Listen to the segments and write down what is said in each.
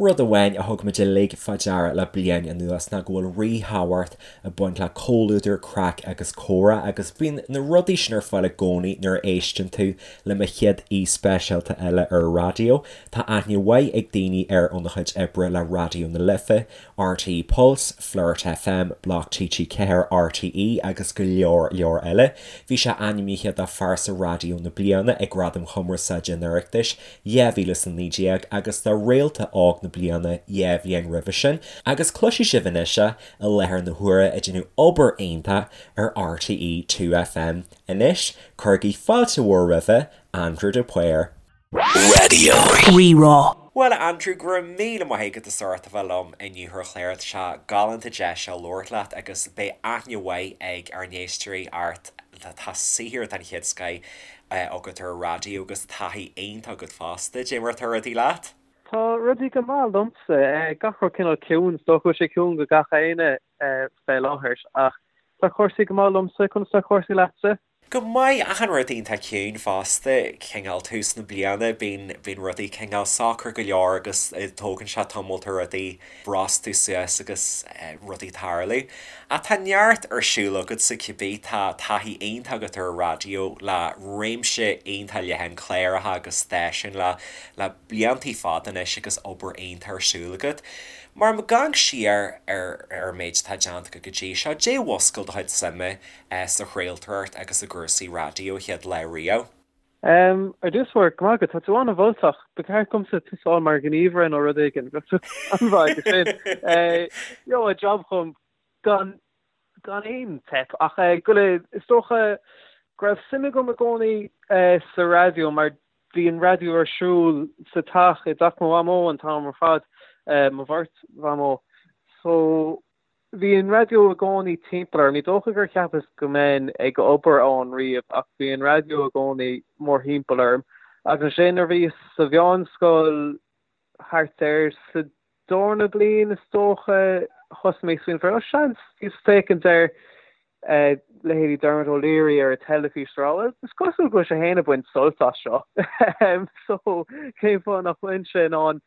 Rud amháin a thug muid uilig fá deara le bliain anuas ná go bhfuil ríthábhacht ag baint le comhluadar, craic agus comhrá agus bíonn na rudaí sin ar fáil i gcónaí nuair a éisteann tú le mo chéad aoi speisialta eile ar an raidió. Tá aithne mhaith ag daoine air óna chuid oibre le Raidió na Life, RTÉ Pulse, Flirt FM, Bloc TG4, RTÉ agus go leor leor eile. Bhí sé ainmnithe do Phearsa Raidió na Bliana ag Gradaim Chumarsáide an Oireachtais 2019 agus do Réalta Óg na Bliana 2 bhliain roimhe sin agus cloisfidh sibh anois é i láthair na huaire ag déanamh obair iontach ar RTÉ 2FM. Anois, cuirigí fáilte mhór roimhe, Andrew de Paor. Raidió Rí-Rá. Bhuel, a Andrew, go raibh míle maith agat as ucht a bheith liom inniu ar an chlár. Tá sé galánta deis seo labhairt leat agus beidh aithne mhaith ag ár n-éisteoirí ort. Tá saothar den chéad scoith agat ar an raidió agus taithí iontach agat fosta. Dé mar atá rudaí leat? Tá rudaí go maith liomsa. Gach rud cineál ciúin. Is dócha go bhfuil sé ciúin go gach éinne fé láthair ach tá cúrsaí go maith liomsa. Conas tá cúrsaí leatsa? Go maith, achan rud iontach ciúin fosta. Cineál tús na bliana, bíonn bíonn rudaí cineál socair go leor agus tógann sé tamall ar rudaí brostú suas agus rudaí tarlú. Ach tá neart ar siúl agatsa cibé, tá taithí iontach agat ar an raidió le réimse iontach leathan cláracha agus stáisiún le le bliantaí fada anois agus obair iontach ar siúl agat. Mar ag amharc siar ar ar an méid atá déanta agat go dtí seo, dé mhúscail do chuid suime sa chraoltóireacht agus i gcúrsaí raidió chéad lá riamh? Ar dtús báire, go maith agat, tá tú an-mholtach. Ba cheart domsa tosáil mar ghníomhaire nó rud éigin. Bheadh tú an-mhaith aige sin. Gheobhadh job chugam gan gan aon teip. Ach go le, is dócha go raibh suim agam i gcónaí sa raidió mar bhí an raidió ar siúl sa teach, i dteach mo mhamó an t-am ar fad, mo bheirt mhamó. So Bhí an raidió i gcónaí timpeall orm. Ní dócha gur cheapas go mbeinn ag obair ann riamh ach bhí an raidió i gcónaí mórthimpeall orm. Agus ansin nuair a bhíos sa mheánscoil thart ar sa darna bliain is dócha thosaigh mé ag smaoineamh ar, oh seans, bhíos ag féachaint ar leithéidí Dermot O'Leary ar an teilifís ag rá bhuel is cosúil go bhfuil sé féin ag baint sult as seo so cén fáth nach bhfuilimse in ann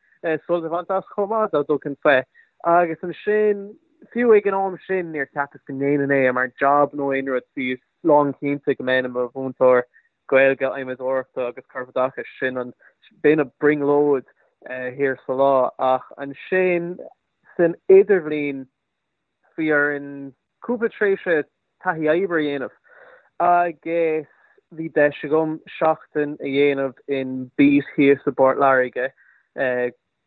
sult a bhaint as chomh maith dá dtugfainn faoi. Agus ansin fiú ag an am sin níor cheapas go ndéanfainn é mar job nó aon rud bhíos lánchinnte go mbeinn i mo mhúinteoir Gaeilge, Adhmadóireachta agus Corpoideachais, sin an b'in an brionglóid thiar sa lá ach ansin san idirbhliain Bhí orainn cúpla tréimhse taithí oibre a dhéanamh agus bhí deis agam seachtain a dhéanamh in Beat thíos i bPort Láirge,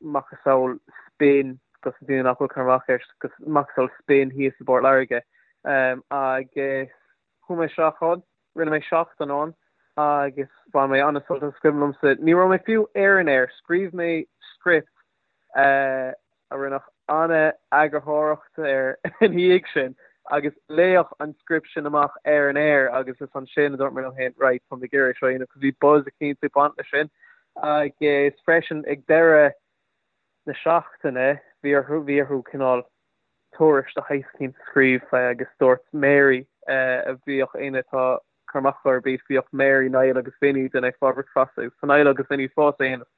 macasamhail Spin dos na daoine nach bhfuil cur amach air, macasamhail Spin thíos i bPort Láirge agus chuaigh mé isteach ann, rinne mé seachtain ann agus bhain mé an-sult as. Is cuimhin liomsa, ní raibh mé fiú ar an aer, scríobh mé script a rinneadh an-eagarthóireacht air ina dhiaidh sin agus léadh an script sin amach ar an aer agus is ansin a dúirt mé liom féin right tá mé ag iarraidh seo a dhéanamh cos bhí buzz eicínt ag baint leis sin agus freisin ag deireadh na seachtaine bhí orthu bhí orthu cineál tuairisc de shaghas eicínt a scríobh fé agus dúirt Mary a bhíodh éinne atá cur amach ar Beat bhíodh Mary, Niall agus Vinny ag déanamh Fá Bhricfeasta agus tá Niall agus Vinny fós á dhéanamh.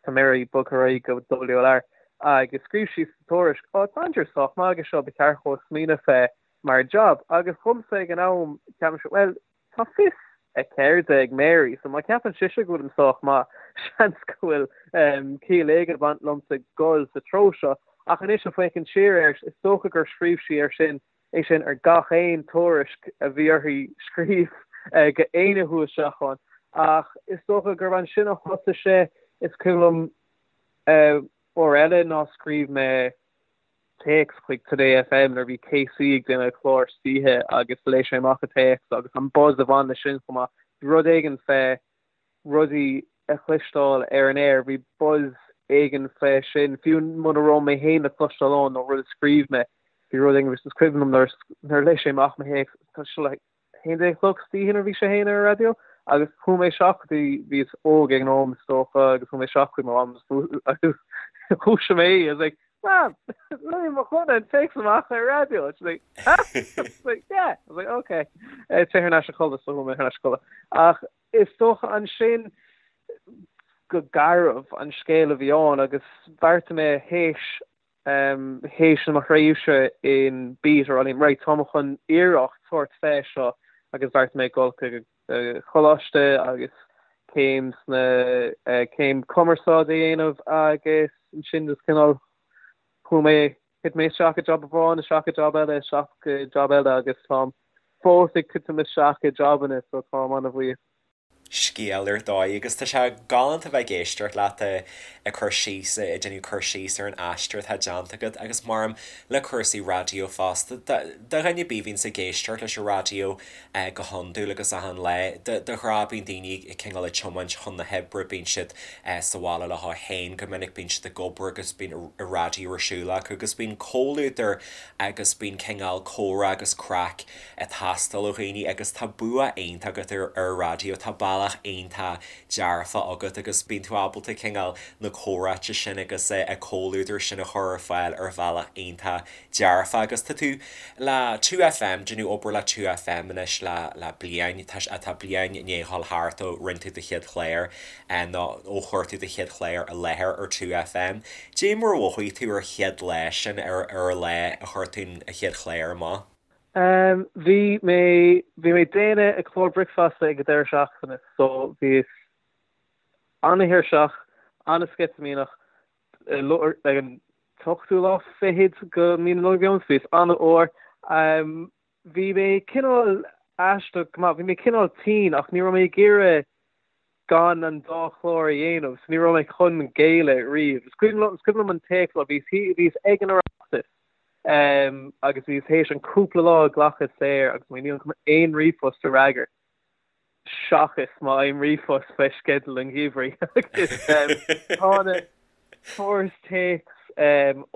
Tá Mary bogtha ar aghaidh go WLR agus scríobh sí sa tuairisc, Ó, tá Andrew sách maith aige seo, ba cheart dhó smaoineamh fé mar job. Agus dhomsa ag an am, cheap mise, bhuel, tá fios a ceirde ag Mary, so má cheapann sise go bhfuilim sách maith, seans go bhfuil ciall éigin ag baint liomsa dul sa treo seo. Ach anois ag féachaint siar air, is dócha gur scríobh sí air sin é sin ar gach aon tuairisc a bhí uirthi scríobh go éinne a chuaigh isteach ann. Ach is dócha gurb ansin a thosaigh sé. Is cuimhin liom uair eile ná scríobh mé téacs chuig Today FM nuair a bhí KC ag déanamh clár istoíche agus léigh sé amach an téacs agus an buzz a bhain leis sin chomh maith. Bhí rud éigin fé rudaí a chloisteáil ar an aer, bhí buzz éigin fé sin, fiú muna raibh mé féin le cloisteáil ann nó rud a scríobh mé, bhí rud éigin, is cuimhin liom nuair a léigh sé amach mo théacs, tá sé like 11 a chlog istoíche nuair a bhí sé féin ar an raidió agus chuaigh mé isteach go dtí, bhíos óg ag an am is dócha agus chuaigh mé isteach chuig mo mham agus dhúisigh mé í, I was like, Mam, léigh mo dhuine an téacs amach ar an raidió. She's like, huh? I was like, yeah. I was like, okay. Téigh thar n-ais a chodladh, so chuaigh mé thar n-ais a chodladh. Ach Is dócha ansin. go garbh an scéal a bhí ann agus bheartaigh mé théis théis mo thréimhse in Beat a rá liom right táim chun iarracht tabhairt fé seo agus bheartaigh mé dul chuig choláiste agus céim sna céim cumarsáide a dhéanamh agus ansin just cineál chuaigh mé thit mé isteach i job amháin isteach i job eile isteach i job eile agus táim fós ag titim isteach i jobanna so táim an-bhuíoch. scéal ar dóigh agus tá sé galánta bheith ag éisteacht leat ag cur síos, ag déanamh cur síos ar an aistear atá déanta agat agus maram le cúrsaí raidió fosta. Do dhuine ar bith a bhíonns ag éisteacht leis an raidió go hiondúil agus achan lá, de ghnáth bíonn daoine cineál ag tiomáint chun na hoibre, bíonn siad sa bhaile leo féin go minic, bíonn siad ag obair agus bíonn an raidió ar siúl acu agus bíonn comhluadar agus bíonn cineál comhrá agus craic ag teastáil ó dhaoine agus tá bua iontach agat ar an raidió, tá bealach iontach dearfach agat agus bíonn tú ábalta cineál na comhráite sin agus an comhluadar sin a chur ar fáil ar bhealach iontach dearfach agus tá tú le 2FM, déanamh obair le 2FM anois le le bliain, tá tá bliain i ndiaidh dhul thart ó rinne tú do chéad chlár nó ó chuir tú do chéad chlár i láthair ar 2FM. Dé mar a mhothaigh tú ar chéad lá sin ar ar an lá a chuir tú an chéad chlár amach? Bhí mé, bhí mé ag déanamh an clár bricfeasta ag an deireadh seachtaine so bhíos an-tuirseach, an-sceitimíneach ag an t-ochtú lá fichead de mhí na Nollag a bhí ann so bhíos an-fhuar. Bhí mé cineál aisteach go maith, bhí mé cineál tinn ach ní raibh mé ag iarraidh gan an dá chlár a dhéanamh so ní raibh mé chun géilleadh riamh. Is cuimhin liom, is cuimhin liom an téacs, bhíos, bhíos ag an Oireachtas agus bhíos théis an cúpla lá a ghlacadh saor agus mé nílim chun aon ríomhphost a fhreagairt seachas má fhaighim ríomhphost fé sceideal an gheimhridh agus tá na Fuaireas téacs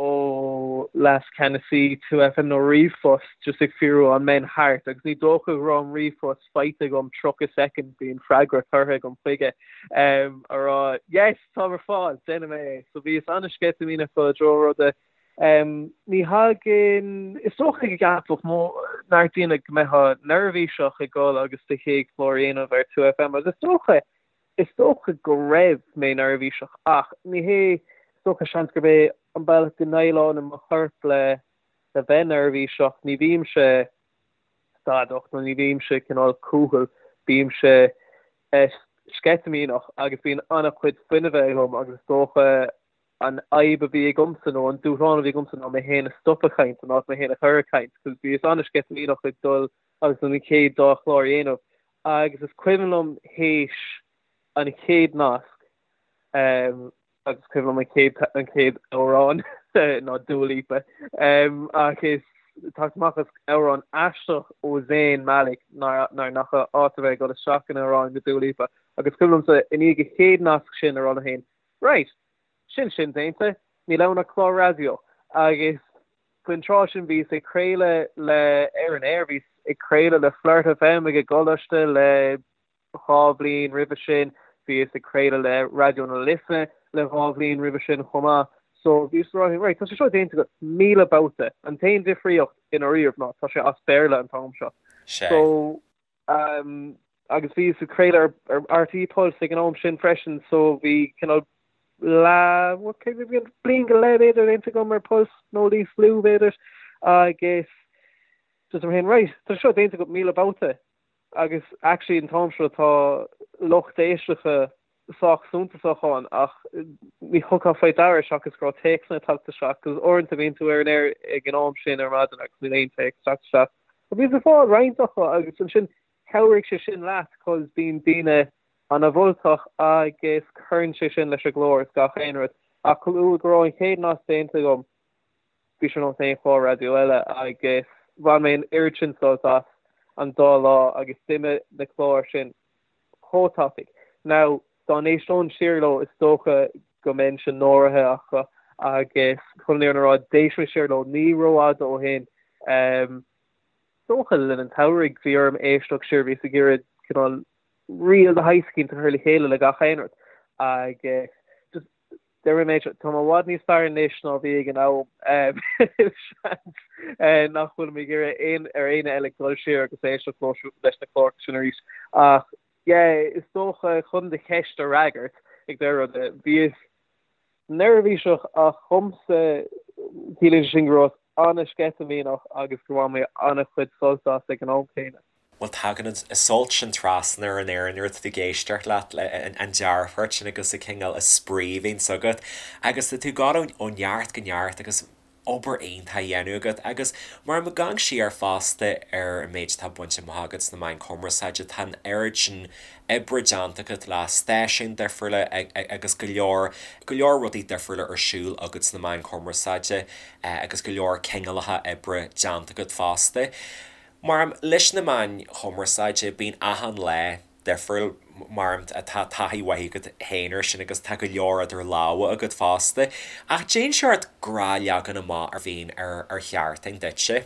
ó Leas-Cheannasaí 2FM nó ríomhphost just ag fiafraí an mbeinn thart agus ní dócha go raibh an ríomhphost faighte agam 30 soicind bhí an freagra curtha agam chuige a rá yes táim ar fáil déanfaidh mé é. So bhíos an-sceitimíneach dul i dtreo ruda. Ní thagann, is dócha go gceapfadh neart daoine go mbeifeá neirbhíseach ag dul agus do chéad chlár a dhéanamh ar 2FM agus is dócha Is dócha go raibh mé neirbhíseach ach ní hé, is dócha seans gurb é an bealach go ndéileálann mo chorp le le bheith neirbhíseach, ní bhímse stadach nó ní bhímse cineál cúthail, bímse sceitimíneach agus bíonn an-chuid fuinnimhe agam agus is dócha an fhadhb a bhí agamsa nó an dúshlán a bhí agamsa ná mé féin a stop ag caint in áit mé féin a chur ag caint cos bhíos an-sceitimíneach ag dul agus an chéad dá chlár a dhéanamh agus is cuimhin liom théis an chéad nasc agus cuimhin liom an chéad an chéad amhrán ná Dua Lipa agus teacht amach as amhrán aisteach ó Zayn Malik nár nach áit a bheith ag dul isteach in amhrán de Dua Lipa agus cuimhin liomsa i ndiaidh an chéad nasc sin a rá liom féin Right! Sin sin déanta, níl ann ach clár raidió. Agus faoin tráth sin bhíos ag craoladh le ar an aer, bhíos ag craoladh le Flirt FM ag an gcoláiste le 2 bhliain roimhe sin, bhíos ag craoladh le Raidió na Life le 2 bhliain roimhe sin chomh maith. So bhíos ag rá, right, tá sé seo déanta agat 1,000 babhta, an t-aon difríocht i ndáiríribh ná tá sé as Béarla an t-am seo. So Agus bhíos ag craoladh ar RTÉ Pulse ag an am sin freisin so bhí cineál leath, bliain go leith b'fhéidir déanta agam ar Pulse nó níos lú b'fhéidir agus just mé féin right tá seo déanta agat 1,000 babhta agus actually an t-am seo tá lucht éisteachta sách suntasach ann ach ní thugfá faoi deara seachas go raibh téacsanna ag teacht isteach agus uaireanta bíonn tú ar an aer ag an am sin ar maidin agus níl aon téacs ag teacht isteach. But bhíos ag fáil roinnt acu agus ansin chabhraigh sé sin leat cos bíonn daoine ana-mholtach agus cuireann sé sin leis an gclár is gach aon rud. Ach chomh luath go raibh an chéad nasc déanta agam bhí sé ar nós aon chlár raidió eile agus bhain mé an oiread sin sult as an dá lá agus d'imigh na cláir sin chomh tapaidh. Now, dá n-éisteoinn siar leo, is dócha go mbeinnse náirithe acu agus chun an fhírinne a rá, d'éist mé siar leo ní rófhada ó shin. Is dócha le linn an tsamhraidh bhí orm éisteacht siar, bhíos ag iarraidh cineál reel de shaghas eicínt a chur le chéile le gach aon rud agus just Déarfaidh mé, tá mé i bhfad níos fearr anois ná bhí ag an am. Seans nach bhfuilim ag iarraidh aon ar éinne eile dul siar agus éisteacht leis na cláracha sin arís. Ach yeah, is dócha chun do cheist a fhreagairt, Ag deireadh ruda. Bhíos neirbhíseach ach dhomsa ciallaíonn sé sin go rabhas an-sceitimíneach agus gur bhain mé an-chuid sult as ag an am céanna. Bhuel tagann an sult sin trasna ar an aer nuair atá tú ag éisteacht leat, an dearfacht sin agus an cineál spraoi a bhíonns agat agus tá tú ag dul ó neart go neart agus obair iontach á dhéanamh agat agus mar ag amharc siar fosta ar an méid atá bainte amach agat sna meáin chumarsáide tá an oiread sin oibre déanta agat le stáisiúin difriúla agus go leor go leor rudaí difriúla ar siúl agat sna meáin chumarsáide agus go leor cineálacha oibre déanta agat fosta. Mar leis na meáin chumarsáide bíonn achan lá difriúil mar tá taithí mhaith agat féin air sin agus tá go leor idir lámha agat fosta. Ach cén seort gnáthleagan amach a bhíonn ar ar sheachtain duitse.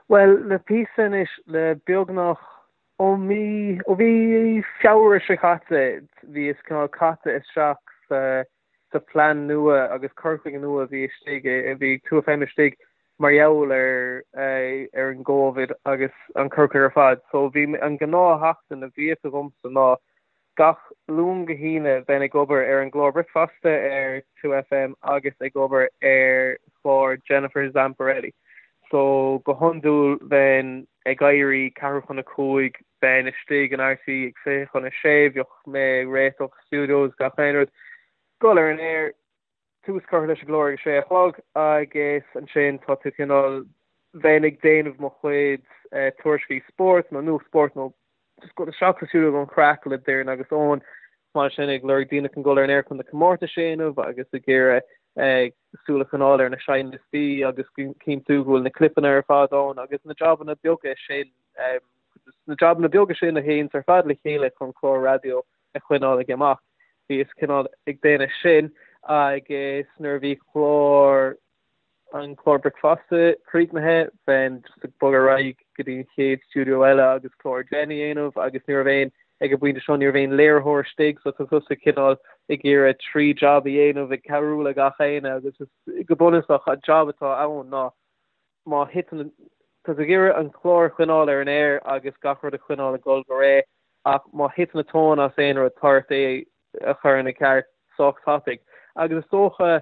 Bhuel, le píosa anois, le beagnach ó mí, ó mhí Feabhra seo caite, bhíos cineál caite isteach sa sa phlean nua agus cur chuige nua a bhí istigh, a bhí ag 2FM istigh mar gheall ar ar an gCovid agus an cur chuige ar fad. So bhí an gnáth-sheachtain a bhíodh agamsa ná gach Luan go hAoine bheinn ag obair ar an gclár bricfeasta ar 2FM agus ag obair ar chlár Jennifer Zamparelli. So go hiondúil bheinn ag éirí ceathrú chun a cúig, bheinn istigh in RTÉ ag 5:40, bheadh mé ag réiteach studios gach aon rud, dul ar an aer, tús curtha leis an gclár ag a sé a chlog agus ansin tá tú cineál, bheinn ag déanamh mo chuid tuairiscí spóirt nó nuacht spóirt nó just dul isteach sa stiúideo don chraic le Doireann agus Eoin, mar sin ag lorg daoine chun dul ar an aer chun na comórtais a dhéanamh agus ag iarraidh súil a choinneáil ar na seinnliostaí agus cinntiú go bhfuil na clipeanna ar fad ann agus na jabanna beaga sin, na jabanna beaga sin a théanns ar fad le chéile chun clár raidió a choinneáil ag imeacht. Bhíos cineál ag déanamh sin agus nuair a bhí clár an clár bricfeasta críochnaithe, bheinn just ag bogadh ar aghaidh go dtí an chéad stiúideo eile agus clár Jen a dhéanamh agus ní raibh aon, ag an bpointe seo, ní raibh aon léiritheoir istigh so tá tusa cineál ag iarraidh trí jab a dhéanamh ag cabhrú le gach éinne agus go bunúsach an jab atá ann ná má thiteann, tá tú ag iarraidh an clár a choinneáil ar an aer agus gach rud a choinneáil ag dul go réidh ach má thiteann an tóin as aon rud tá ort é a chur ina ceart sách tapaidh agus is dócha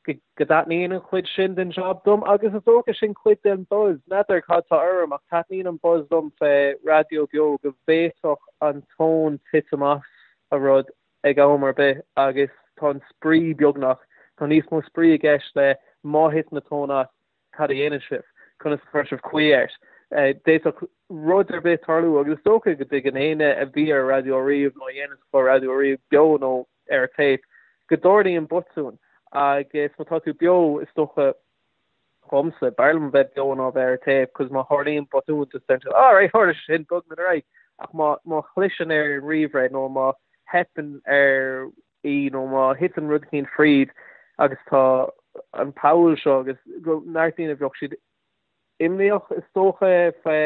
go dtaitníonn an chuid sin den job dom agus is dócha sin cuid den buzz. N'fheadar cad tá orm ach taitníonn an buzz liom fé raidió beo go bhféadfadh an tóin titim as a rud ag am ar bith agus tá an spraoi beagnach, tá níos mó spraoi i gceist le má thiteann an tóin as, cad a dhéanann sibh? Conas a chuir sibh caoi air? D'fhéadfadh rud ar bith tarlú agus is dócha go dtuigeann éinne a bhí ar raidió riamh nó a dhéanann clár raidió riamh, beo nó ar téip, go dtarlaíonn botúin agus má tá tú beo is dócha dhomsa, b'fhearr liom a bheith beo ná a bheith ar téip cos má tharlaíonn botún just deireann tú alright tharla sé sin, bogfaimid ar aghaidh ach má má chliseann ar an ríomhaire nó má theipeann ar í nó má thiteann rud eicínt fríd agus tá an poll seo agus go neart daoine bheadh siad imníoch is dócha fé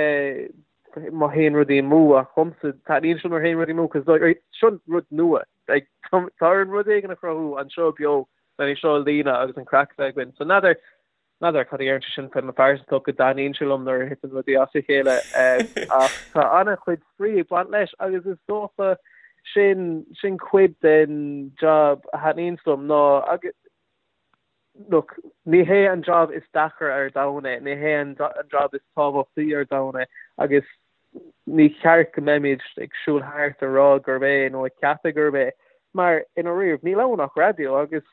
má théann rudaí amú ach dhomsa taitníonn sé nuair a théann rudaí amú cos like seo rud nua like tá orainn rud éigin a chruthú anseo beo len é seo a líonadh agus an craic a bheith againn so n'fheadar N'fheadar cad a deireann sé sin fé mo phearsantacht go dtaitníonn sé liom nuair a thiteann rudaí as a chéile ach tá an-chuid spraoi ag baint leis agus is dócha sin sin cuid den job a thaitníonns liom ná agus look ní hé an job is deacra ar domhan é, ní hé an job is tábhachtaí ar domhan é agus ní ceart go mbeimid ag siúl thart ag rá gurb é nó ag ceapadh gurb é mar i ndáiríre níl ann ach raidió agus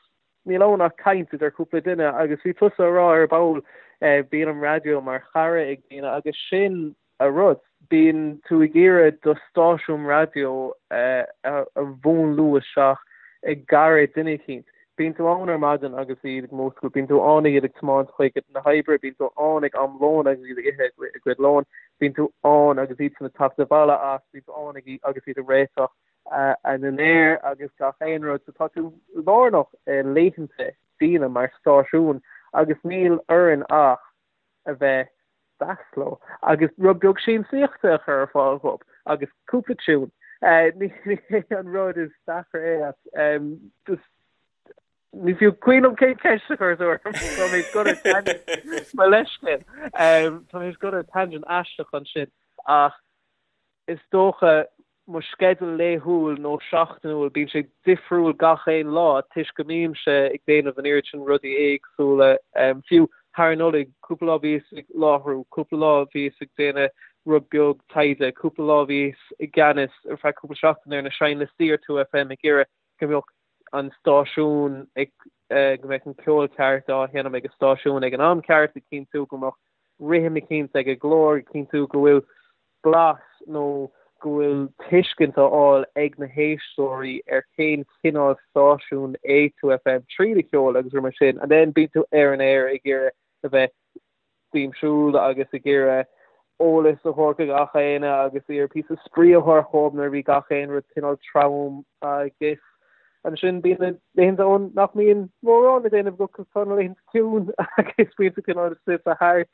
Níl ann ach caint idir cúpla duine agus bhí tusa a rá ar ball bíonn an raidió mar chara ag daoine agus sin a rud. Bíonn tú ag iarraidh do stáisiún raidió a mhúnlú isteach i gcara duine eicínt. Bíonn tú ann ar maidin agus iad ag múscailt, bíonn tú ann iad ag tiomáint chuig na hoibre, bíonn tú ann ag am lóin agus iad ag ithe a gcuid lóin, bíonn tú ann agus iadsan ag teacht abhaile as, bíonn tú ann agus iad ag réiteach a ndinnéar agus gach aon rud. So tá tú lárnach i laethanta daoine mar stáisiún agus níl orainn ach a bheith deas leo agus rud beag siamsaíochta a chur ar fáil dhóibh agus cúpla tiún. Ní hé an rud is deacra é ach just ní fiú cuimhin liom cén ceist a chuir tú orm. Tá mé ag dul ar tangent mo leithscéal. Tá mé ag dul ar tangent aisteach ansin ach is dócha. mo sceideal laethúil nó seachtainiúil, bíonn sé difriúil gach aon lá toisc go mbímse ag déanamh an oiread sin rudaí éagsúla. Fiú thar an Nollaig, cúpla lá bhíos ag láithriú, cúpla lá bhíos ag déanamh rud beag taighde, cúpla lá bhíos i gceannas ar feadh cúpla seachtain ar na seinnliostaí ar 2FM ag iarraidh go mbeadh an stáisiún ag, go mbeadh an ceol ceart á sheinm ag an stáisiún ag an am ceart, ag cinntiú go mbeadh rithim eicínt ag an gclár, ag cinntiú go bhfuil blas nó go bhfuil tuiscint á fháil ag na héisteoirí ar cén cineál stáisiún é 2FM tríd an cheol agus rudaí mar sin and then bíonn tú ar an aer ag iarraidh a bheith siamsúil agus ag iarraidh eolas a thabhairt do gach éinne agus iarraidh píosa spraoi a thabhairt dhóibh nuair a bhí gach aon rud cineál trom agus Ansin bíonn na laethanta ann nach mbíonn mórán le déanamh agat cos tá na laethanta ciúin agus bíonn tú cineál suite thart.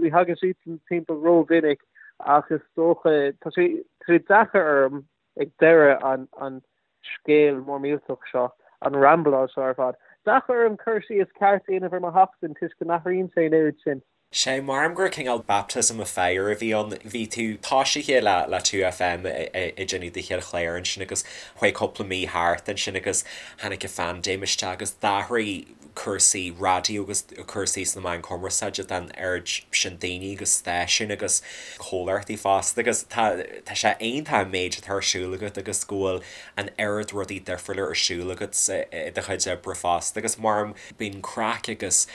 Ní thagann siad timpeall rómhinic ach is dócha tá sé tá sé deacair orm ag deireadh an an scéal mór millteach seo, an rambláil seo ar fad. Deacair orm cur síos ceart a dhéanamh ar mo sheachtain toisc go n-athraíonn sé an oiread sin. Sé, maram gur cineál baptism of fire a bhí ann. Bhí tú toisithe le le 2FM ag déanamh do chéad chlár ansin agus chuaigh cúpla mí thart ansin agus tháinig an phaindéim isteach agus d'athraigh cúrsaí raidió agus cúrsaí sna meáin chumarsáide don oiread sin daoine agus stáisiún agus comhlachtaí fosta agus tá tá sé iontach an méid atá ar siúl agat agus go bhfuil an oiread rudaí difriúla ar siúl agat i do chuid oibre fosta agus maram bíonn craic agus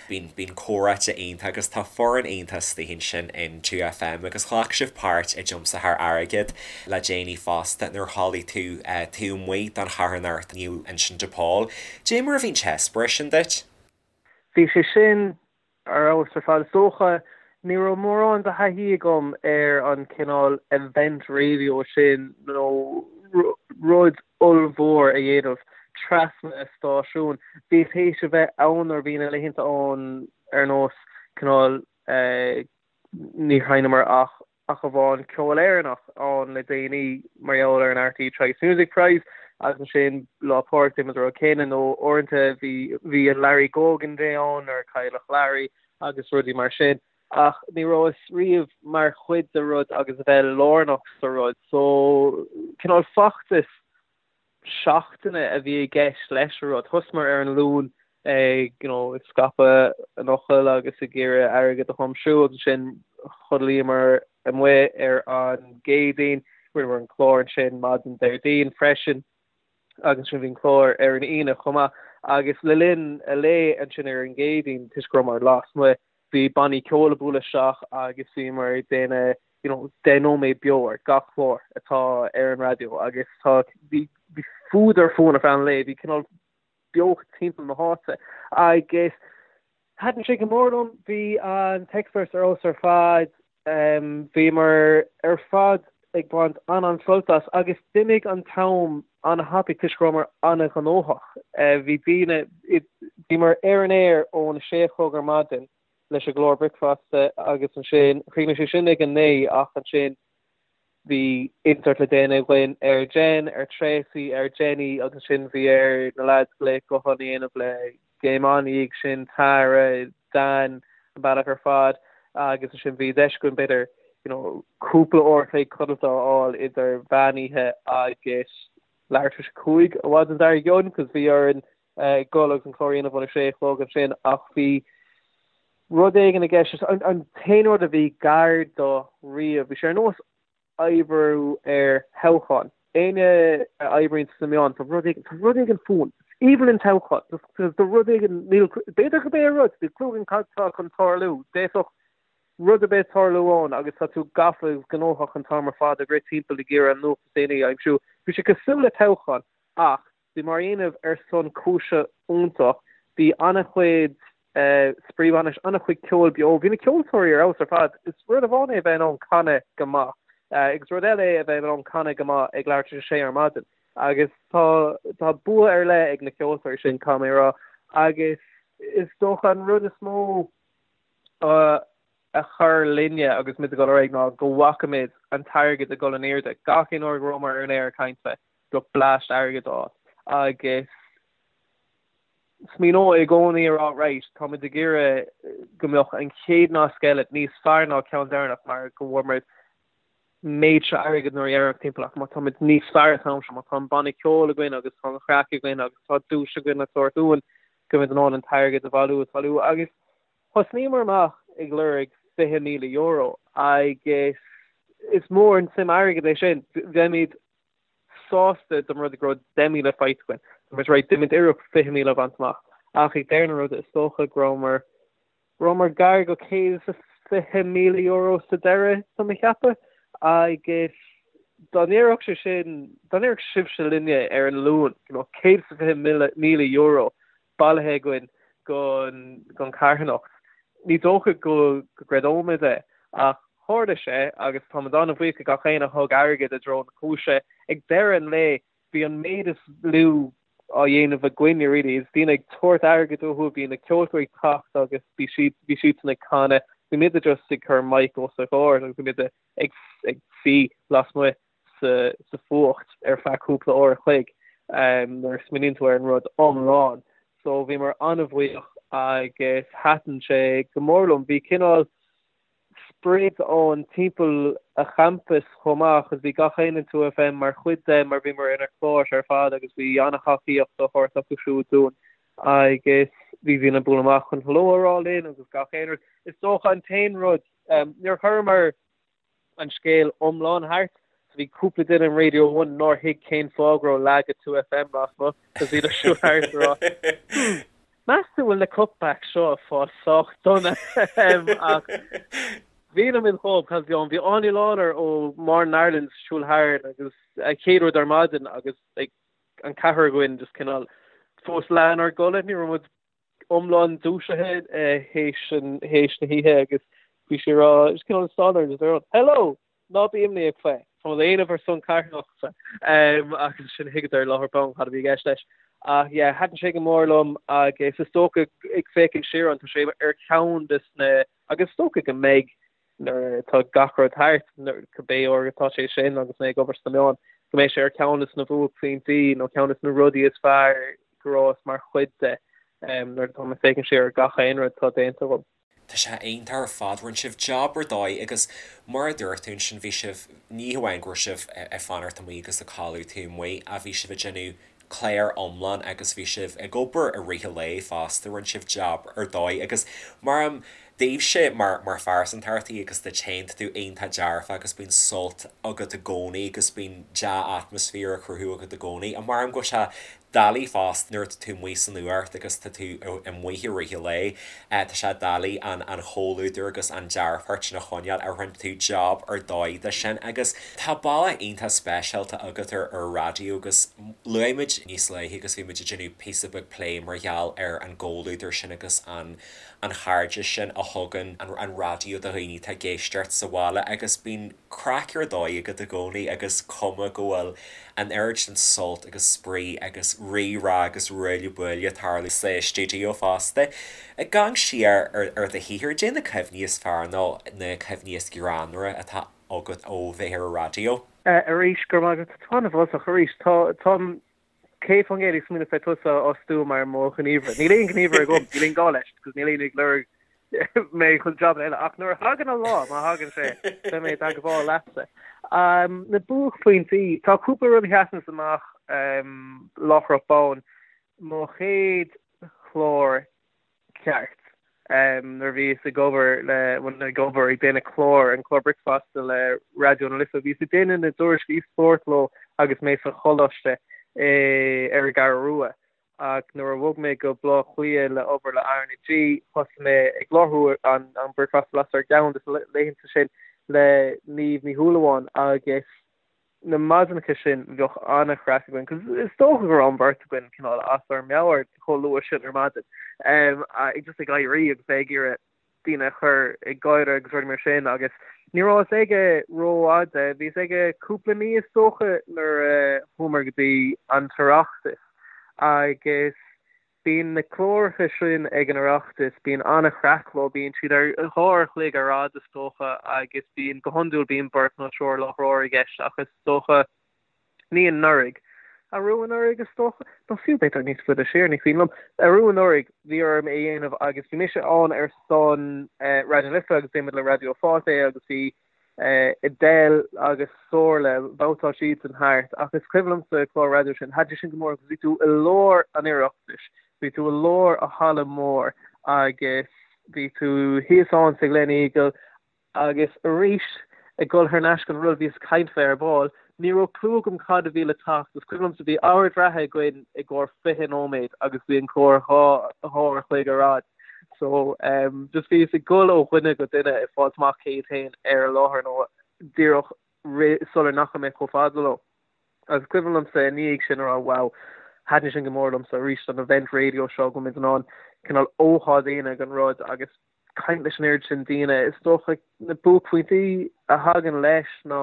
Bíonn, bíonn comhráite iontach agus tá foireann iontach istigh ansin in 2FM agus ghlac sibh páirt i dtiomsaitheoir airgid le déanaí fosta nuair a chodlaigh tú taobh amuigh don charthanacht Naomh Uinseann de Pól. Dé mar a bhí an t-eispéireas sin duit? Bhí sé sin ar fheabhas ar fad. Is dócha, ní raibh mórán de thaithí agam ar an cineál event radio sin nó rud ollmhór a dhéanamh trasna stáisiún. Bhíos théis a bheith ann nuair a bhí na laethanta ann ar nós cineál níor sheinneamar ach ach amháin ceol Éireannach ann le déanaí mar gheall ar an RTÉ Choice Music Prize agus ansin Lá Pádraig déanaimid an rud céanna nó uaireanta bhí bhí an Larry Gogan Day ann nuair a cailleadh Larry agus rudaí mar sin. Ach ní rabhas riamh mar chuid de rud agus a bheith lárnach sa rud so cineál feachtas seachtaine a bhí i gceist leis an rud. Thosaíomar ar an Luan ag you know ag scaipeadh an fhocail agus ag iarraidh airgead a thiomsú agus ansin chodlaíomar amuigh ar an gCéadaoin, rinneamar an clár ansin maidin Déardaoin freisin agus ansin bhí an clár ar an Aoine chomh maith agus le linn an lae ansin ar an gCéadaoin toisc go rabhamar lasmuigh bhí bannaí ceoil ag bualadh isteach agus bhíomar ag déanamh you know 10 nóiméad beo ar gach clár atá ar an raidió agus tá bhí bhí fuadar fúinn ar feadh an lae, bhí cineál beocht timpeall na háite agus thaitin sé go mór liom, bhí an t-eispéireas ar fheabhas ar fad. Bhíomar ar fad ag baint an-an-sult as agus d'imigh an t-am an-thapaidh toisc go rabhamar an-ghnóthach. Bhí daoine, bhíomar ar an aer ón 6 a chlog ar maidin leis an gclár bricfeasta agus ansin chríochnaigh sé sin ag a 9 ach ansin bhí insert le déanamh againn ar Jen, ar Tracy, ar Jenny agus ansin bhí ar na lads glaoch gutháin a dhéanamh le Game On ina dhiaidh sin, Tara, Dan, an bealach ar fad agus ansin bhí deis againn b'fhéidir you know cúpla uair a chloig codlata a fháil idir mheán oíche agus leathuair tar éis a 5 an mhaidin dár gcionn cos bhí orainn dul agus an clár a dhéanamh óna sé a chlog ansin ach bhí rud éigin i gceist, an t-aon rud a bhí gar do riamh, bhí sé ar nós oibriú ar thoghchán. Éinne a oibríonn sna meáin, tá rud éigin, tá rud éigin fúinn. Is aoibhinn linn toghchán. Tá rud éigin, níl, b'fhéidir gurb é an rud, níl clue againn cad tá chun tarlú. D'fhéadfadh rud ar bith tarlú ann agus tá tú gafa agus gnóthach an t-am ar fad ag rith timpeall ag iarraidh an nuacht is déanaí a aimsiú. Bhí sé cosúil le toghchán ach Bhíomar á dhéanamh ar son cúise iontach. Bhí an-chuid spraoi bainis, an-chuid ceoil beo. Bhí na ceoltóirí ar fheabhas ar fad. Is rud amháin é a bheith in ann canadh go maith agus rud eile é a bheith in ann canadh go maith ag leathuair tar éis a sé ar maidin. Agus tá tá bua ar leith ag na ceoltóirí sin, caithfidh mé a rá. Agus is dócha an rud is mó a chuir linne agus muid ag dul ar aghaidh ná go bhfaca muid an t-airgead ag dul in airde. Gach aon uair go rabhamar ar an aer ag caint le bheadh bleaist airgid ann agus smaoineoidh i gcónaí a rá right, tá muid ag iarraidh go mbeadh an chéad nasc eile níos fearr ná ceann deireanach mar go bhfuair muid. méid seo airgid nuair dheireanach timpeall ach má táimid níos fearr an t-am seo, má tá an banna ceoil againn agus tá an chraic againn agus tá duais againn le tabhairt uainn, go mbeimid in ann an t-airgead a bhailiú is bhailiú. Agus thosnaíomar amach ag lorg €20,000 agus is mór an tsuim airgid é sin. Bheimid sásta dá mba rud é go raibh 10,000 faighte againn. Dá mba rud é déanfaimid iarracht 20,000 a bhaint amach. Ach ag deireadh na ruda is dócha go rabhamar Rabhamar gar go €120,000 sa deireadh, tá mé ag ceapadh, agus dá ndéarfadh sé sin, dá ndéarfadh sibhse linne ar an Luan go mbeadh €120,000 bailithe againn don charthanacht, ní dócha go gcreideoimid é. Ach tharla sé agus táimid an-bhuíoch do gach éinne a thug airgead i dtreo na cúise. Ag deireadh an lae, bhí an méid is lú á dhéanamh againne really is daoine ag tabhairt airgid uathu, bhí na ceoltóirí ag teacht agus bhí siad, bhí siadsan ag canadh, bhí muide just ag cur mic os a gcomhair agus bhí muide ag, ag suí lasmuigh sa, sa fuacht ar feadh cúpla uair a chloig nuair a smaoiníonn tú ar an rud iomlán. So bhíomar an-bhuíoch agus thaitin sé go mór liom. Bhí cineál sprid ann timpeall a champas chomh maith agus bhí gach éinne in 2FM mar chuid de mar bhíomar inár cláir ar fad agus bhí an-thacaíocht á thabhairt acu siúd dúinn agus bhí daoine ag bualadh amach chun hello a rá linn agus gach aon rud. Is dócha an t-aon rud, níor chuireamar an scéal iomlán thart so bhí cúpla duine in Radio One nár thuig cén fáth go raibh leath de 2FM lasmuigh agus bhíodar ag siúl thart ag rá hmm, meas tú bhfuil na cutbacks seo ag fáil sách dona ach bhí muid chomh cos bhí bhí Áine Lawlor ó Morning Ireland ag siúl thart agus a chéad rud ar maidin agus like, an ceathrar againn just cineál fós leath inár gcodladh ní raibh muid iomlán dúisithe théis théis na hoíche agus bhí sí ag rá just cineál stán just ag rá hello ná bí imníoch faoi tá muid á dhéanamh ar son carthanachta agus sin thuigeadar láithreach bonn cad a bhí i gceist leis. Ach yeah, thaitin sé go mór liom agus is dócha ag féachaint siar ann tá sé ar cheann de na agus is dócha go mbeidh nuair atá gach rud thart, cibé uair atá sé sin agus mé ag obair sna meáin, go mbeidh sé ar cheann de na buaicphointí nó ceann de na rudaí is fearr go rabhas mar chuid de nuair atá mé ag féachaint siar ar gach aon rud atá déanta agam. Tá sé iontach ar fad, rinne sibh jab ar dóigh agus mar a dúirt tú ansin bhí sibh, ní hamháin go raibh sibh ag fanacht amuigh agus ag codladh taobh amuigh ach bhí sibh ag déanamh clár iomlán agus bhí sibh ag obair i rith an lae fosta, rinne sibh jab ar dóigh agus mar am daoibhse mar mar phearsantacht agus duit féin, tá tú iontach dearfach agus bíonn sult agat i gcónaí agus bíonn dea-atmaisféar á chruthú agat i gcónaí. Ach mar am go bhfuil sé doiligh fosta nuair atá tú amuigh san fhuacht agus tá tú amuigh i rith an lae, tá sé doiligh an an chomhluadar agus an dearfacht sin a choinneáil ach rinne tú jab ar dóigh de sin agus tá bealach iontach speisialta agat ar ar raidió agus luaigh muid níos luaithe agus bhí muid ag déanamh píosa beag plé mar gheall ar an gcomhluadar sin agus an an chairdeas sin a thugann an raidió do dhaoine atá ag éisteacht sa bhaile agus bíonn craic ar dóigh agat i gcónaí agus cuma go bhfuil an oiread sin sult agus spraoi agus rí-rá agus ruaille buaille ag tarlú sa stiúideo fosta. Ag amharc siar ar do shaothar, caidé na cuimhní is fearr nó na cuimhní is greannmhaire atá agat ó bheith ar an raidió? Arís, go raibh maith agat. Tá an-mholtach arís. Tá, táim 100% ag smaoineamh fé tusa a fhostú mar mo ghníomhaire. Níl aon ghníomhaire agam, níl aon gá leis, because níl éinne ag lorg mé chun job eile. Ach nuair a thagann an lá, má thagann sé, beidh mé i dteagmháil leatsa. Na buaicphointí, tá cúpla rud a sheasanns amach láithreach bonn. Mo chéad chlár ceart. Nuair a bhíos ag obair le, bhuel ag obair, ag déanamh clár, an clár bricfeasta le Raidió na Life, bhíos ag déanamh na dtuairiscí spóirt leo agus mé sa choláiste ar an gCeathrú Rua. Ach nuair a bhog mé go Baile Átha Cliath le obair le RnaG, thosaigh mé ag láithriú an bricfeasta las ar gceann de na laethanta sin le Niamh Ní Shúilleabháin agus na maidineacha sin bheadh an-chraic againn 'cause is dócha go raibh an bheirt againn cineál as ár meabhair chomh luath sin ar maidin ag just ag éirí agus bheith ag iarraidh daoine a chur ag gáire agus rudaí mar sin agus ní rabhas aige rófhada, bhíos aige cúpla mí is dócha nuair a chuamar go dtí an tOireachtas agus Bíonn na cláracha sin ag an Oireachtas, bíonn an-chraic leo, bíonn siad ar dhá uair a chloig ar fhad is dócha agus bíonn, go hiondúil bíonn beirt nó triúr láithreoir i gceist ach is dócha, ní anuraidh, arú anuraidh is dócha, nó fiú b'fhéidir níos faide siar, ní cuimhin liom, arú anuraidh bhí orm é a dhéanamh agus bhí mise ann ar son Raidió na Life agus déanaimid le Raidió Fáilte é agus bhí. Edel agus Somhairle, bhabhtáil siadsan thart ach is cuimhin liomsa an clár raidió sin, thaitin sin go mór agus bhí tú i lár an Oireachtais, bhí tú i lár an halla mór agus bhí tú thíos ann sa Gleneagle agus arís ag dul thar n-ais gon rud a bhíos ag caint fé ar ball, ní raibh clue agam cad a bhí le teacht, is cuimhin liomsa bhí ord reatha againn i gcomhair 20 nóiméad agus bhí an clár 2 uair a chloig ar fhad. So just bhíos ag dul ó dhuine go duine ag fáilt amach cé hiad féin ar an láthair nó díreach sular ndeachaigh mé chomh fada leo. Agus cuimhin liomsa i ndiaidh sin a rá wow, thaitin sin go mór liomsa arís an event radio seo go bhfuil muid in ann cineál ócáid a dhéanamh den rud agus caint leis an oiread sin daoine. Is dócha na buaicphointí a thagann leis ná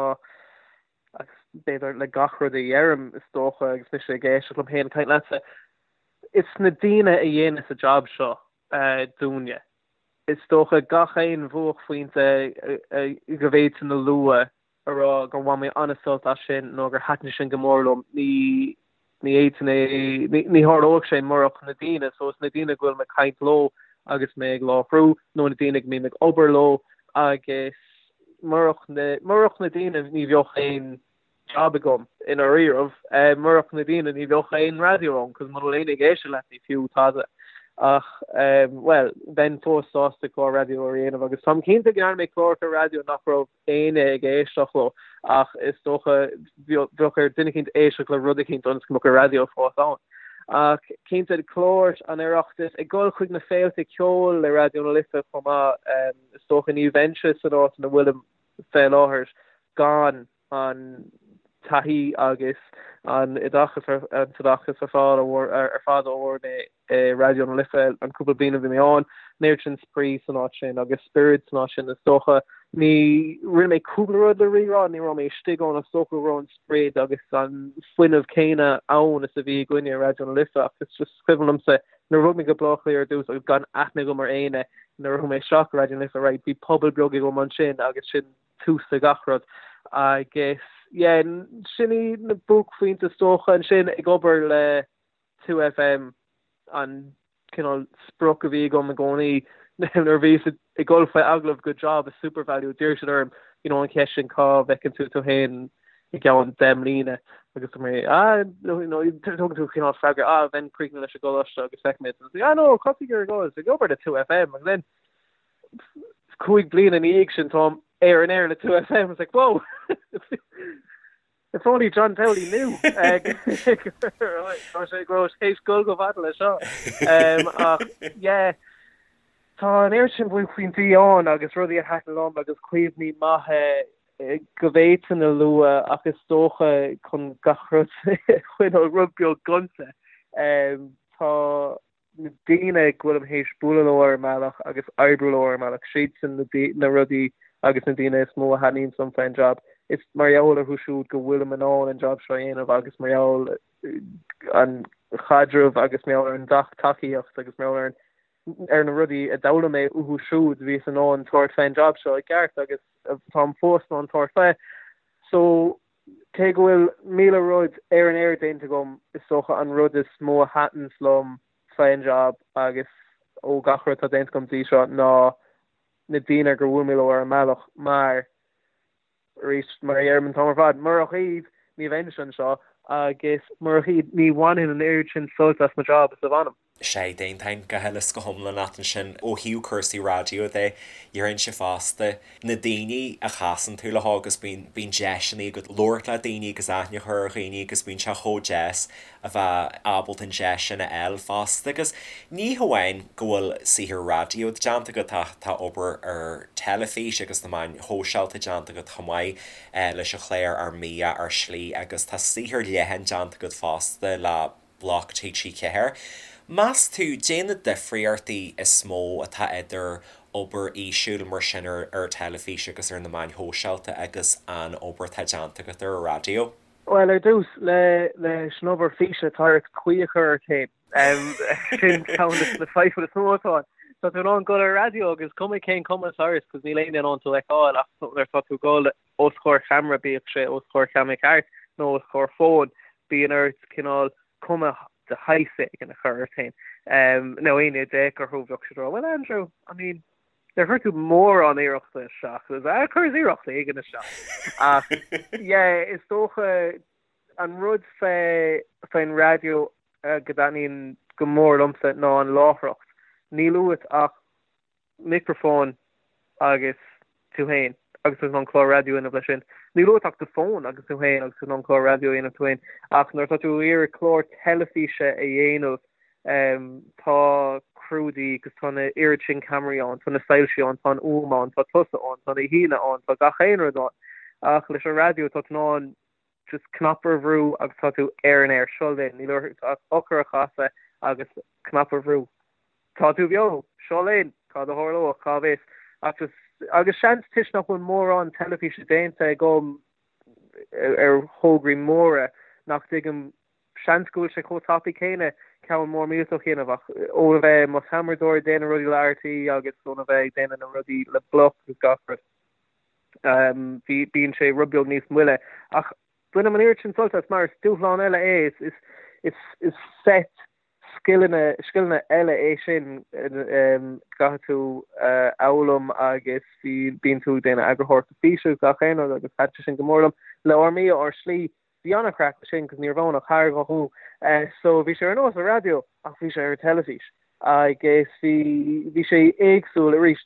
agus b'fhéidir le gach rud a dheirim is dócha agus mise ag éisteacht liom féin ag caint leatsa, is na daoine a dhéanas an jab seo dúinne. Is dócha gach aon bhuaicphointe go bhféadfainn a lua a rá gur bhain mé an-sult as sin nó gur thaitin sin go mór liom, ní ní fhéadfainn é, ní tharlódh sé murach na daoine, so is na daoine go bhfuil mé ag caint leo agus mé ag láithriú nó na daoine go mbím ag obair leo agus murach na, murach na daoine ní bheadh aon jab agam i ndáiríribh, murach na daoine ní bheadh aon raidió ann cos muna bhfuil éinne ag éisteacht leat ní fiú tada. Ach bhuel, bheinn fós sásta clár raidió a dhéanamh agus táim cinnte go ndearna mé cláracha raidió nach raibh éinne ag éisteacht leo ach is dócha bheadh ar duine eicínt éisteacht le rud eicínt ionas go mbeadh an raidió fós ann. Ach cinnte cláir an Oireachtais ag dul chuig na féilte ceoil le Raidió na Life chomh maith, is dócha ní bheinnse san áit ina bhfuilim fé láthair gan an taithí agus an oideachas an t-oideachas ar fáil ar fad a fuair mé i Raidió na Life an cúpla bliain a bhí mé ann, an oiread sin spraoi san áit sin agus spiorad san áit sin is dócha. Ní, rinne mé cúpla rud le Rí-Rá, ní raibh mé istigh ann, is dócha go raibh an sprid agus an fuinneamh céanna ann is a bhí againne i Raidió na Life ach is just cuimhin liomsa nuair a bhog mé go Baile Átha Cliath ar dtús agus gan aithne agam ar éinne nuair a chuaigh mé isteach i Raidió na Life, right, bhí pobal beag agam ansin agus sin tús le gach rud agus yeah, sin iad na buaicphointí is dócha ansin ag obair le 2FM an cineál sprioc a bhí agam i gcónaí nuair a bhíos ag dul faoi agallamh go job i Supervalu d'iarr siad orm you know an cheist sin cá bhfeiceann tú tú féin i gceann 10 mbliana agus dúirt mé ah you know tugann tú cineál freagra ah bheinn críochnaithe leis an gcoláiste agus feicfimid agus ah no cá tú ag iarraidh dul ag obair le 2FM agus then 5 bliana ina dhiaidh sin táim ar an aer le 2FM it's like whoa If only John Townley knew go raibh sé ag dul chomh fada leis seo. Ach yeah, tá an oiread sin buaicphointí ann agus rudaí a thaitin liom agus cuimhní maithe go bhféadfainn a lua ach is dócha chun gach rud a choinneáil rud beag gonta. Tá na daoine go bhfuilim théis bualadh leo ar an mbealach agus oibriú leo ar an mbealach, siadsan na rudaí agus na daoine is mó a thaitníonns liom faoin jab. Is mar gheall orthu siúd go bhfuilim in ann an jab seo a dhéanamh agus mar gheall an chaidreamh agus mar gheall ar an tacaíocht agus mar gheall ar ar na rudaí a d'fhoghlaim mé uathu siúd bhíos in ann tabhairt fén jab seo i gceart agus táim fós in ann tabhairt fé. So Cé go bhfuil 1,000 rud ar an aer déanta agam, is dócha an rud is mó a thaitneos liom fén jab agus ó gach rud atá déanta agam dtí seo ná na daoine gur bhuail mé leo ar an mbealach mar, arís, mar a dheirim an t-am ar fad, murach iad ní bheinnse anseo agus murach iad ní bhainfinn an oiread sin sult as mo job is a bhainim. Sea, d'aontóinn go huile is go hiomlán leat ansin. Ó thaobh cúrsaí raidió de, déarfainnse fosta, na daoine a chasann tú leo agus bíonn, bíonn deiseanna agat labhairt le daoine agus aithne a chur ar dhaoine agus bíonn sé chomh deas a bheith ábalta an deis sin a fháil fosta. Agus ní hamháin go bhfuil saothar raidió déanta agat ach tá obair ar teilifís agus na meáin shóisialta déanta agat chomh maith leis an chlár Ár mBia, Ár Slí agus tá saothar leathan déanta agat fosta le Bloc TG4. Meas tú, caidé na difríochtaí is mó atá idir obair fhísiúil mar sin ar ar teilifís agus ar na meáin shóisialta agus an obair atá déanta agat ar an raidió? Bhuel, ar dtús, le leis an obair físe, tá ort caoi a chur ort féin. Sin ceann de na fadhbanna is mó atá ann. Tá tú in ann dul ar raidió agus cuma cén cuma atá ort, cos níl éinne in ann tú a fheiceáil ach nuair atá tú ag dul os comhair cheamara, bíodh sé os comhair cheamara ceart nó os comhair fóin, bíonn ort cineál cuma de shaghas éigin a chur ort féin. Nó éinne a d'fhéach orthu bheadh siad ag rá, well Andrew, I mean, Níor chuir tú mórán iarrachta isteach. Chuireas iarracht éigin isteach. Ach yeah, is dócha an rud fé faoin raidió go dtaitníonn go mór liomsa ná an láithreacht. Níl uait ach micreafón agus tú féin agus tú in ann clár raidió a dhéanamh leis sin. Níl uait ach do fón agus tú féin agus tú in ann clár raidió a dhéanamh tú féin. Ach nuair atá tú ag iarraidh clár teilifíse a dhéanamh tá criú de dhíth agus tá na oiread sin ceamaraí ann, tá na soilsí ann, tá an fhuaim ann, tá tusa ann, tá na haíonna ann, tá gach aon rud ann. Ach leis an raidió tá tú in ann just cnaipe a bhrú agus tá tú ar an aer. Seo linn. Níl ort ach eochair a chasadh agus cnaipe a bhrú. Tá tú beo! Seo linn! Cad a tharlóidh? Cá bhfios? Ach just, agus seans toisc nach bhfuil mórán teilifíse déanta agam ar thograí móra nach dtuigim, seans go bhfuil sé chomh tapaidh céanna ceann mór millteach a dhéanamh ach óna bheith i mo cheamaradóir ag déanamh rudaí le RTÉ agus óna bheith ag déanamh na rudaí le Bloc agus gach rud, bhí, bíonn sé rud beag níos moille. Ach bainim an oiread sin sult as mar is dúshlán eile é, is, is, is, is set scileanna, scileanna eile é sin caithfidh tú a fhoghlaim agus bhí, bíonn tú ag déanamh eagarthóireachta físe agus gach aon rud agus thaitin sin go mór liom. Le Ár mBia, Ár Slí, bhí an-chraic leis sin cos ní raibh ann ach tharghathú so bhí sé ar nós an raidió ach bhí sé ar an teilifís agus bhí, bhí sé éagsúil arís.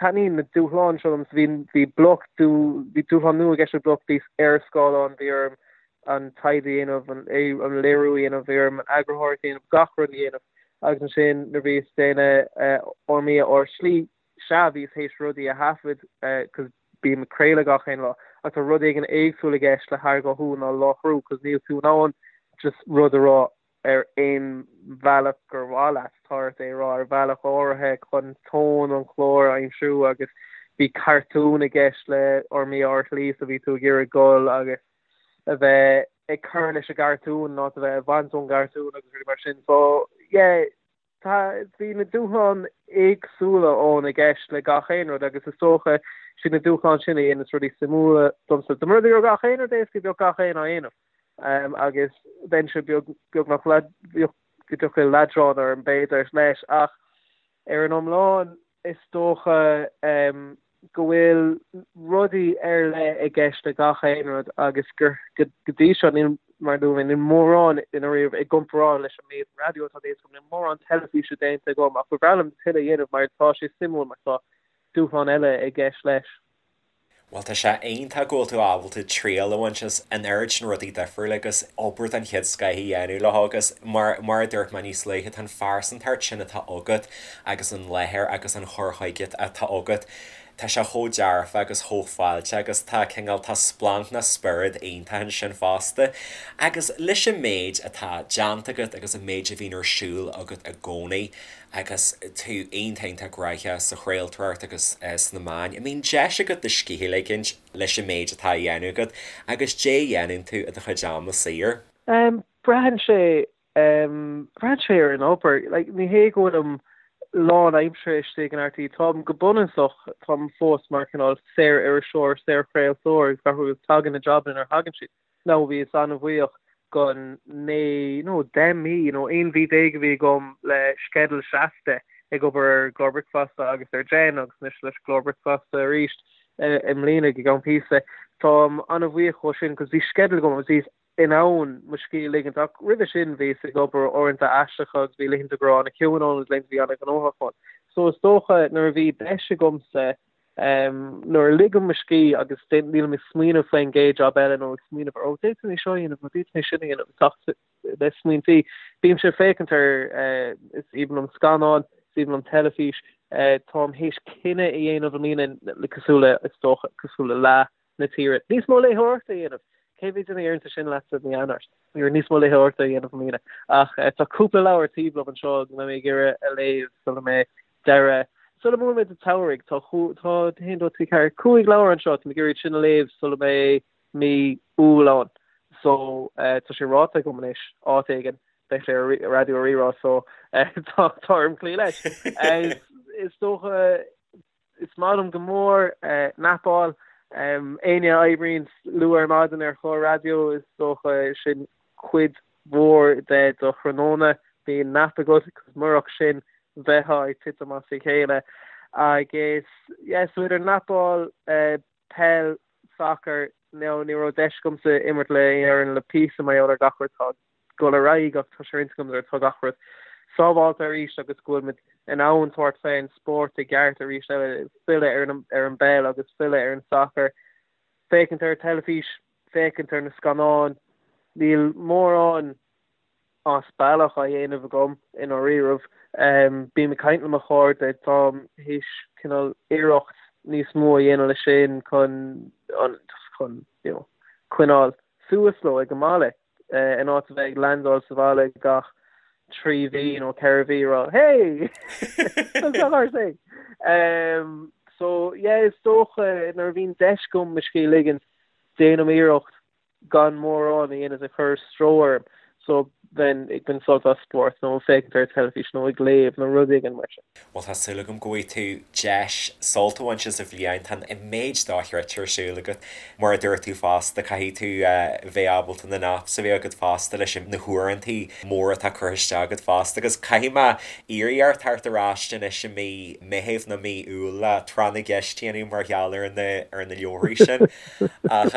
Taitníonn na dúshláin seo liom. Bhí, bhí Bloc, bhí dúshlán nua i gceist le Bloc, bhíos ar scáileán, bhí orm an taighde a dhéanamh, an, an léiriú a dhéanamh, bhí orm an eagarthóireacht a dhéanamh, gach rud a dhéanamh. Agus ansin nuair bhíos ag déanamh Ár mBia Ár Slí, sea, bhíos théis rudaí a thaifead, cos bím ag craoladh gach aon lá, ach tá rud éigin éagsúil i gceist le harghathú ná láithriú, cos níl tú in ann just rud a rá ar aon bhealach gur mhaith leat, tá ort é a rá ar bhealach áirithe chun tón an chláir a aimsiú agus bhí cartún i gceist le Ár mBia Ár Slí so bhí tú ag iarraidh dul agus a bheith ag cur leis an gcartún ná a bheith ag baint ón gcartún agus rudaí mar sin. So yeah, tá, bhí na dúshláin éagsúla ann i gceist le gach aon rud agus is dócha siad na dúshláin sin a dhéanas rudaí suimiúla domsa. Dá mba rud é go raibh gach aon rud éasca bheadh gach aon á dhéanamh. Agus bheinnse beag, beagnach go dtiocfadh leadrán orm b'fhéidir leis ach ar an iomlán is dócha go bhfuil rudaí ar leith i gceist le gach aon rud agus gur go dtí seo níl, mar a dúirt mé, níl mórán i ndáiríre i gcomparáid leis an méid raidió atá déanta agam, níl mórán teilifíse déanta agam ach ba bhreá liom tuilleadh a dhéanamh mar tá sé suimiúil mar tá dúshlán eile i gceist leis. Bhuel, tá sé iontach go bhfuil tú ábalta triail a bhaint as an oiread sin rudaí difriúla agus obair den chéad scoith a dhéanamh leo agus mar, mar a dúirt mé níos luaithe, tá an phearsantacht sin atá agat agus an láthair agus an chur chuige atá agat, tá sé chomh dearfa agus chomh fáilteach agus tá cineál, tá splanc nó spiorad iontach ansin fosta. Agus leis an méid atá déanta agat agus an méid a bhíonn ar siúl agat i gcónaí, agus tú iontach iontach gnóthach sa chraoltóireacht agus sna meáin, an mbíonn deis agat do scíth a ligint leis an méid atá á dhéanamh agat agus caidé a dhéanann tú i do chuid ama saor? Braitheann sé, braitheann sé ar an obair. Like, ní hé go bhfuilim lán-aimseartha istigh in RTÉ, táim go bunúsach, táim fós mar cineál saor-iriseoir, saor-chraoltóir agus gach rud, tagann na jabanna nuair a thagann siad. Now bhíos an-bhuíoch gon 9 nó 10 mí nó 11 mhí a bhí agam le sceideal seasta ag obair ar an gclár bricfeasta agus ar Jen agus anois leis an gclár bricfeasta arís i mbliana go gceann píosa. Táim an-bhuíoch dhó sin cos bhí sceideal agam agus bhíos in ann mo scíth a ligint ach roimhe sin bhíos ag obair uaireanta aisteacha agus bhí laethanta go raibh an-chiúin ann agus laethanta a bhí an-ghnóthach ann. So is dócha nuair a bhí deis agamsa Nuair a ligim mo scíth agus nílim ag smaoineamh faoin gcéad jab eile nó ag smaoineamh ar, ó, d'fhéadfainn é seo a dhéanamh nó d'fhéadfainn é sin a dhéanamh, ag teacht le smaointí, bímse ag féachaint ar, is aoibhinn liom scannáin, is aoibhinn liom teilifís, táim théis cinneadh a dhéanamh i mbliana, cosúil le, is dócha, cosúil le leath na tíre, níos mó léitheoireachta a dhéanamh. Cé mhéad duine a deireann sin leatsa mí Eanáir? Bhí níos mó léitheoireachta a dhéanamh i mbliana. Ach tá cúpla leabhar taobh liom anseo go mbeidh mé ag iarraidh a léamh sula mbeidh deireadh, sula mbuailfidh muid an tsamhraidh. Tá, tá, 1, 2, 3, 4, 5 leabhar anseo, tá mé ag iarraidh iad sin a léamh sula mbeidh mí Iúil ann. So, tá sé ráite agam anois, áit éigin, beidh sé ar Raidió Rí-Rá so tá orm cloí leis. Is dócha Is maith liom go mór napáil. Éinne a oibríonn luath ar maidin ar chlár raidió, is dócha sin cuid mhór de do thráthnóna. Bíonn nap agat, cos murach sin bheifeá ag titim as a chéile. Agus yeah so idir netball, peil, sacar, now ní raibh deis agamsa imirt le aon fhoireann le píosa mar gheall ar gach rud atá ag dul ar aghaidh ach tá sé ar intinn agam nuair atá gach rud sábháilte arís agus go bhfuil muid in ann tabhairt fén spórt i gceart arís eile, filleadh ar an ar an bpeil agus filleadh ar an sacar. Féachaint ar an teilifís, féachaint ar na scannáin, níl mórán as bealach á dhéanamh agam i ndáiríribh. Bím ag caint le mo chairde, táim théis cineál iarracht níos mó a dhéanamh leis sin chun an just chun you know coinneáil suas leo ag an mbaile in áit a bheith ag landáil sa bhaile gach 3 mhí nó 4 mhí ag rá hey! Tá Um, so yeah, is dócha nuair a bhíonn deis agam mo scíth a ligint déanaim iarracht gan mórán a dhéanamh ag cur stró orm so bheinn ag baint sult as spórt nó ag féachaint ar teilifís nó ag léamh nó rud éigin mar sin. Bhuel tá súil agam go bhfaighidh tú deis sult a bhaint as an bhliain, tá an méid dochreidte ar siúl agat. Mar a dúirt tú fosta, caithfidh tú bheith ábalta na naps a bheith agat fosta leis na huaireantaí móra atá curtha isteach agat fosta agus caithfidh mé iarraidh ort teacht ar ais anois i mí Meithimh nó mí Iúil le tráth na gceist a dhéanamh mar gheall ar na ar na leabharthaí sin. Ach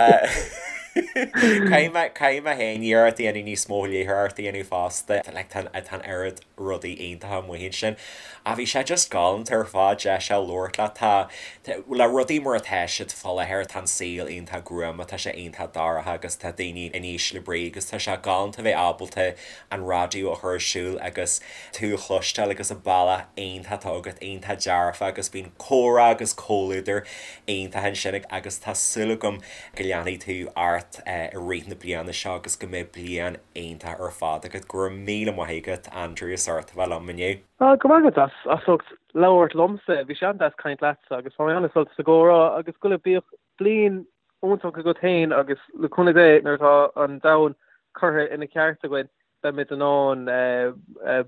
caithfidh mé caithfidh mé féin iarracht a dhéanamh níos mó léitheoireacht a dhéanamh fosta. Like tá tá an oiread rudaí iontacha amuigh ansin. Ach bhí sé just galánta ar fad deis a labhairt leat. Tá le rudaí mar atá siad fá láthair tá an saol iontach gruama, tá sé iontach dorcha agus tá daoine in ísle brí agus tá sé galánta bheith ábalta an raidió a chur ar siúl agus tú a chloisteáil agus an bealach iontach atá agat iontach dearfa agus bíonn comhrá agus comhluadar iontach ansin agus tá súil agam go leanfaidh tú ort i rith na bliana seo agus go mbeidh bliain iontach ar fad agat. Go raibh míle maith agat Andrew as ucht a bheith liom inniu. Go raibh maith agat as ucht labhairt liomsa. Bhí sé an-deas caint leatsa agus bhain mé an-sult as an gcomhrá agus go bíodh bliain iontach agat féin agus le cúnamh Dé nuair atá an domhan curtha ina cheart againn beimid in ann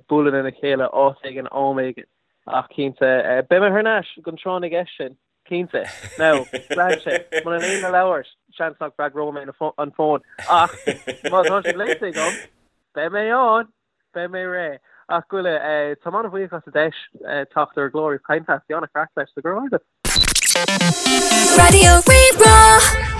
bualadh lena chéile áit éigin am éigin ach cinnte beidh mé thar n-ais don tráth na gceist sin cinnte. Now braitheann sé muna léim na leabhair seans nach bhfreagróidh mé an fón ach má tá siad léite agam beidh mé ann! Beidh mé réidh. Ach Goile, táim an-bhuíoch as an deis teacht ar an gclár agus caint leat. Bhí an-chraic leis, so go raibh maith agat. Raidió Rí-Rá.